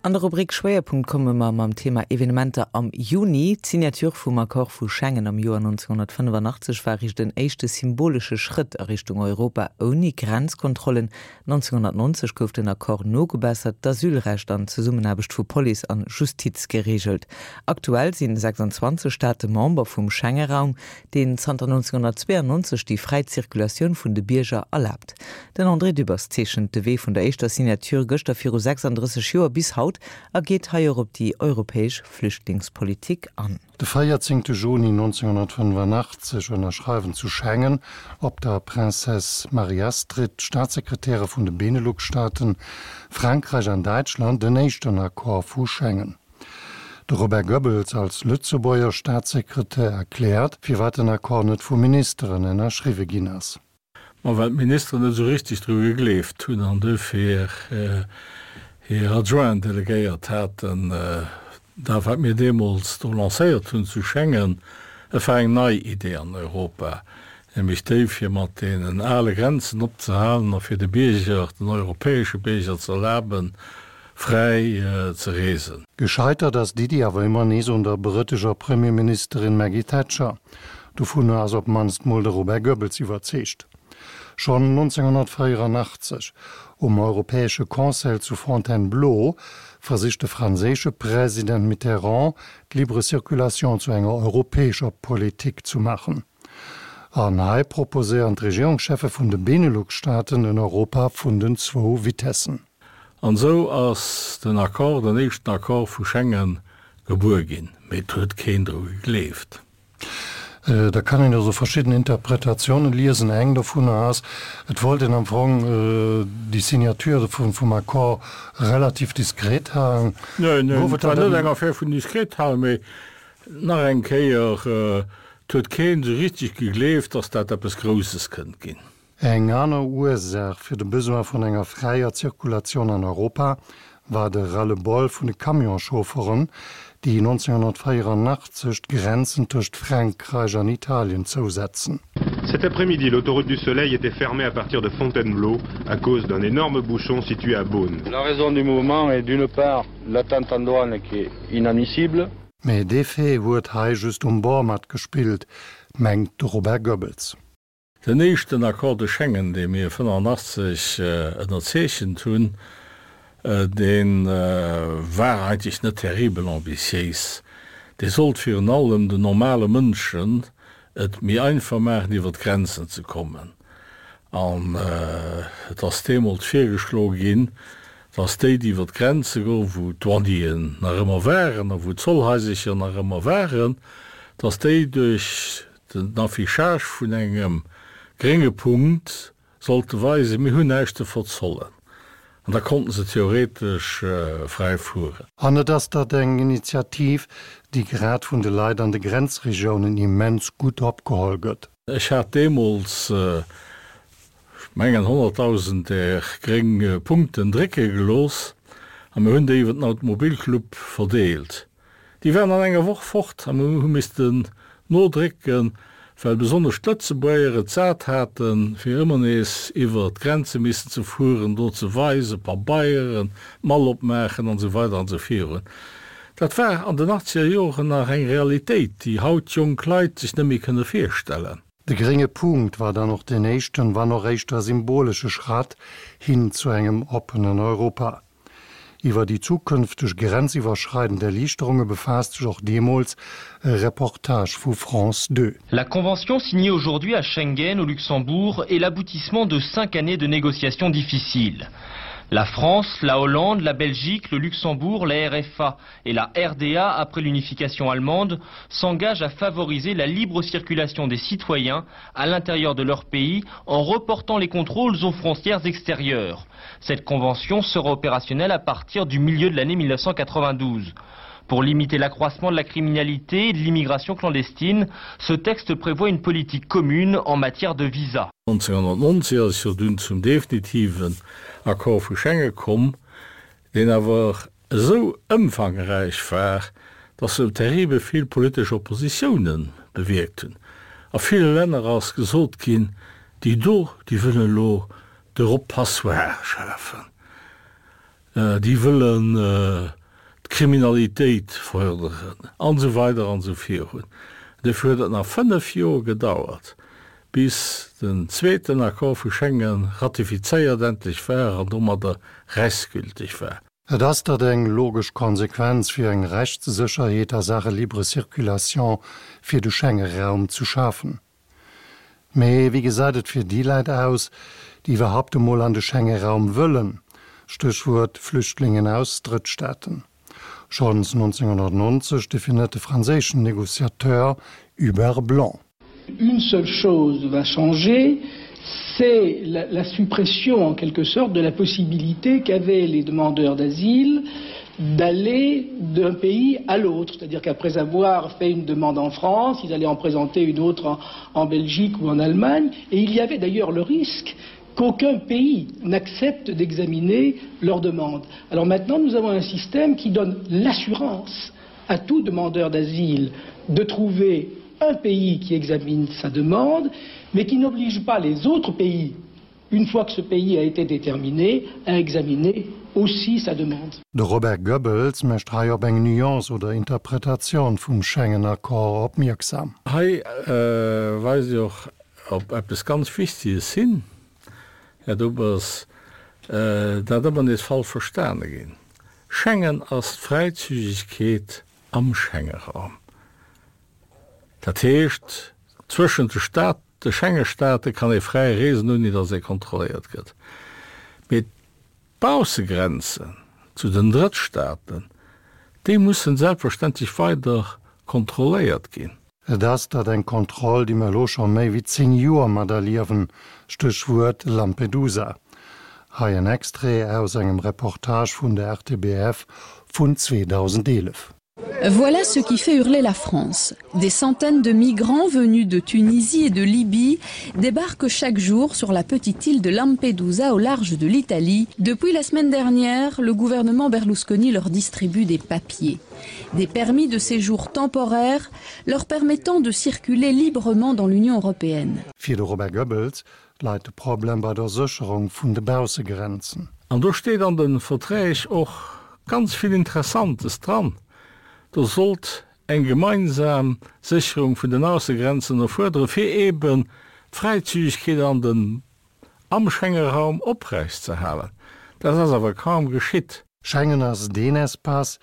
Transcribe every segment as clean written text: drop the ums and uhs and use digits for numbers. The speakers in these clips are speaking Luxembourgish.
An der Rubrik Schwéierpunkt komme mer mam Thema Evenementer am Juni. D'Signature vum Accord vu Schengen am Joer 1985 war eréischt en éischte symbolesche Schrëtt a Richtung Europa ouni Grenzkontrollen. 1990 gouf den Accord nogebessert, d'Asylrecht an d'Zesummenaarbecht vu Police an Justiz gereegelt. Aktuell sinn 26 Staate Member vum Schenge-Raum, deen zanter 1992 déi fräi Zirkulatioun vun de Bierger erlaabt. Den André Dübbers zeechent de Wee vun der éischter Signature gëschter viru 36 Joer bis haut a geet hei och op déi europäesch Flüchtlingspolitik an. De 14 Juni 1985 ënnerschreiwen zu Schengen op der Princesse Marie-Astrid d'Staatssekretäre vun de Benelux-Staaten, Frankräich an Däitschland den éischten Accord vu Schengen. De Robert Goebbels als Lëtzebuerger Staatssekretär erkläert, firwat den Accord net vu Ministeren ënnerschriwwe ginn ass. Ma well d'Ministeren net esou richteg dru gegleeft hunn an duerfir hir Adjointen delegéiert haten. Dat wat mir deemools do lancéiert hunn zu Schengen, et war eng nei Idee an Europa, nämlech déi fir mat deenen ale Grenzen opzehalen a fir de Bierger, den europäesche Bierger ze erlaben, fräi ze reesen. Gescheitert ass d'Iddi awer ëmmer nees un der brëtescher Premierministerin Maggie Thatcher. Dovunner ass op d'mannst mol de Robert Goebbels iwwerzeegt. Schonn 1984, um Europäesche Conseil zu Fontainebleau, versicht de franséische President Mitterrand, d'Libre Circulation zu enger europäescher Politik zu maachen. An hei proposéieren d'Regierungscheffe vun de Benelux-Staaten en Europa vun den zwou Vitessen. An esou ass den Accord, den éischten Accord vu Schengen, gebuer ginn. Mee et huet keen dru gegleeft. Da kann een also verschidden Interpretatiounen liesen. Eng dovunner ass, et wollt een am Fong déi Signature vum Accord relativ diskret halen. Neen, neen, et war net eng Affär vun diskret halen, mee nach eng Kéier, et huet keen esou richtig gegleeft, datt dat eppes Grousses kënnt ginn. Eng aner Ursaach fir de Besoin vun enger fräier Zirkulatioun an Europa war de Ras-le-bol vun de Camionsschaufferen, déi 1984 d'Grenzen tëscht Frankräich an Italien zousetzen. Cet après-midi, l'autoroute du Soleil était fermée à partir de Fontainebleau à cause d'un énorme bouchon situé à Beaune. La raison du mouvement est d'une part l'attente en douane qui est inadmissible. Mee dee Fait huet hei just um Bord matgespillt, mengt de Robert Goebbels. Den éischten Accord de Schengen, dee mir 85 ënnerzeechent hunn, dee war eigentlech net terribel ambitiéis. Dee sollt virun allem den normale Mënschen et méi einfach maachen, iwwer d'Grenzen ze kommen. An et ass deemools virgeschloe ginn, dass déi, déi iwwer d'Grenze goen, wou d'Douanieren nach ëmmer waren a wou d'Zollhaisercher nach ëmmer waren, dass déi duerch Den Affichage vun engem grénge Punkt sollte weisen, mir hunn näischt ze verzollen. An da konnten se theoretesch fräi fueren. An et ass dat eng Initiativ, déi grad vun de Leit an de Grenzregiounen immens gutt opgeholl gëtt. Ech hat deemools, ech mengen, 100.000 där gréng Punkten drécke gelooss a mir hunn déi iwwer den Automobilclub verdeelt. Déi waren an enger Woch fort a mir hu missten nodrécken, well besonnesch d'Lëtzebuerger et sat haten, fir ëmmer nees iwwer d'Grenze missen ze fueren, do ze weisen, Pabeieren, d'Mall opmaachen an esou weider an esou virun. Dat war an den achtzeger Joren nach eng Realitéit, déi haut jonk Leit sech net méi kënne virstellen. De grénge Punkt war dann och deen éischten, wann och éischter symbolesche Schratt hin zu engem oppenen Europa. Iwwer déi zukünfteg grenziwwerschreidend Erliichterunge befaasst sech och deemools e Reportage vu France 2. La convention signée aujourd'hui à Schengen au Luxembourg est l'aboutissement de cinq années de négociations difficiles. La France, la Hollande, la Belgique, le Luxembourg, la RFA et la RDA après l'unification allemande s'engagent à favoriser la libre circulation des citoyens à l'intérieur de leur pays en reportant les contrôles aux frontières extérieures. Cette convention sera opérationnelle à partir du milieu de l'année 1992. Pour limiter l'accroissement de la criminalité et de l'immigration clandestine, ce texte prévoit une politique commune en matière de visa. 1990 ass jo dunn zum definitiven Accord vu Schengen komm, deen awer esou ëmfangräich war, dass se terribel vill politesch Oppositiounen bewierkt hunn. A ville Länner ass gesot ginn, déi do, déi wëllen elo de Rob Passoire schafen. Déi wëllen d'Kriminalitéit fërderen, an esou weider an esou virun. Dofir huet et nach 5 Joer gedauert, bis den zweeten Accord vu Schengen ratifizéiert endlech war an domadder rechtsgültig war. Et ass dat eng logesch Konsequenz, fir eng Rechtssécherheet a Saache libre circulation fir de Schenge-Raum zu schafen. Mee wéi gesäit et fir déi Läit aus, déi iwwerhaupt emol an de Schenge-Raum wëllen? Stéchwuert Flüchtlingen aus Drëttstaaten. Schonns 1990 definiert de franséischen Négociateur Hubert Blanc. Une seule chose va changer, c'est la, la suppression en quelque sorte de la possibilité qu'avaient les demandeurs d'asile d'aller d'un pays à l'autre, c'est-à-dire qu'après avoir fait une demande en France, ils allaient en présenter une autre en, en Belgique ou en Allemagne, et il y avait d'ailleurs le risque qu'aucun pays n'accepte d'examiner leur demande. Alors maintenant, nous avons un système qui donne l'assurance à tout demandeur d'asile de trouver un pays qui examine sa demande, mais qui n'oblige pas les autres pays, une fois que ce pays a été déterminé, à examiner aussi sa demande. De Robert Goebbels mécht hei op eng Nuance oder Interpretatioun vum Schengen-Accord opmierksam. Hei weist Dir och op eppes ganz Wichteges hin, Här Dubbers, dat ëmmer nees falsch verstane ginn. Schengen ass d'Fräizügegkeet am Schengeraum. Dat heescht, zwëschent de Staat, de Schengestaate kann ee fräi reesen, ouni datt ee kontrolléiert gëtt. Mee d'Baussegrenzen zu den Drëttstaaten, déi mussen selbstverständlech weider kontrolléiert ginn. Et ass dat eng Kontroll, déi mer elo scho méi wéi 10 Joer materliewen, Stéchwuert Lampedusa. Hei en Extrait aus engem Reportage vun der RTBF vun 2011. Voilà ce qui fait hurler la France. Des centaines de migrants venus de Tunisie et de Libye débarquent chaque jour sur la petite île de Lampedusa au large de l'Italie. Depuis la semaine dernière, le gouvernement Berlusconi leur distribue des papiers. Des permis de séjour temporaires leur permettant de circuler librement dans l'Union européenne. Fir de Robert Goebbels läit de Problem bei der Sécherung vun de Baussegrenzen. An do steet an de Verträg och ganz vill Interessantes dran. Do sollt eng gemeinsam Sécherung vun den Aussegrenzen erfuerderen, fir eeben d'Fräizügegkeet an den am Schengeraum oprechtzeerhalen. Dat ass awer kaum geschitt. Schengen ass deen Espace,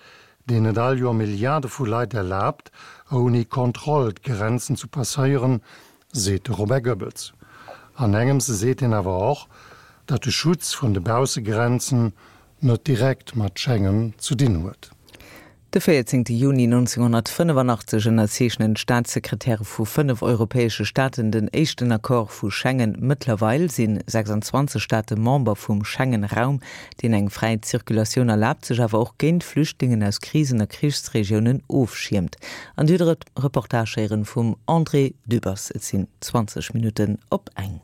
deen et all Joer Milliarde vu Leit erlaabt, ouni Kontroll d'Grenzen zu passéieren, seet de Robert Goebbels. An engems seet hien awer och, datt de Schutz vun de Baussegrenzen net direkt mat Schengen zu dinn huet. De 14 Juni 1985 ënnerzeechnen d'Staatssekretäre vu 5 europäesche Staaten den éischten Accord vu Schengen. Mëttlerweil si 26 Staate Member vum Schengen-Raum, deen eng fräi Zirkulatioun erlaabt, sech awer och géint Flüchtlingen aus Krisen a Krichsregiounen ofschiermt. An Dir hutt e Reportage héieren vum André Dübbers. Et sinn 20 Minutten op eng.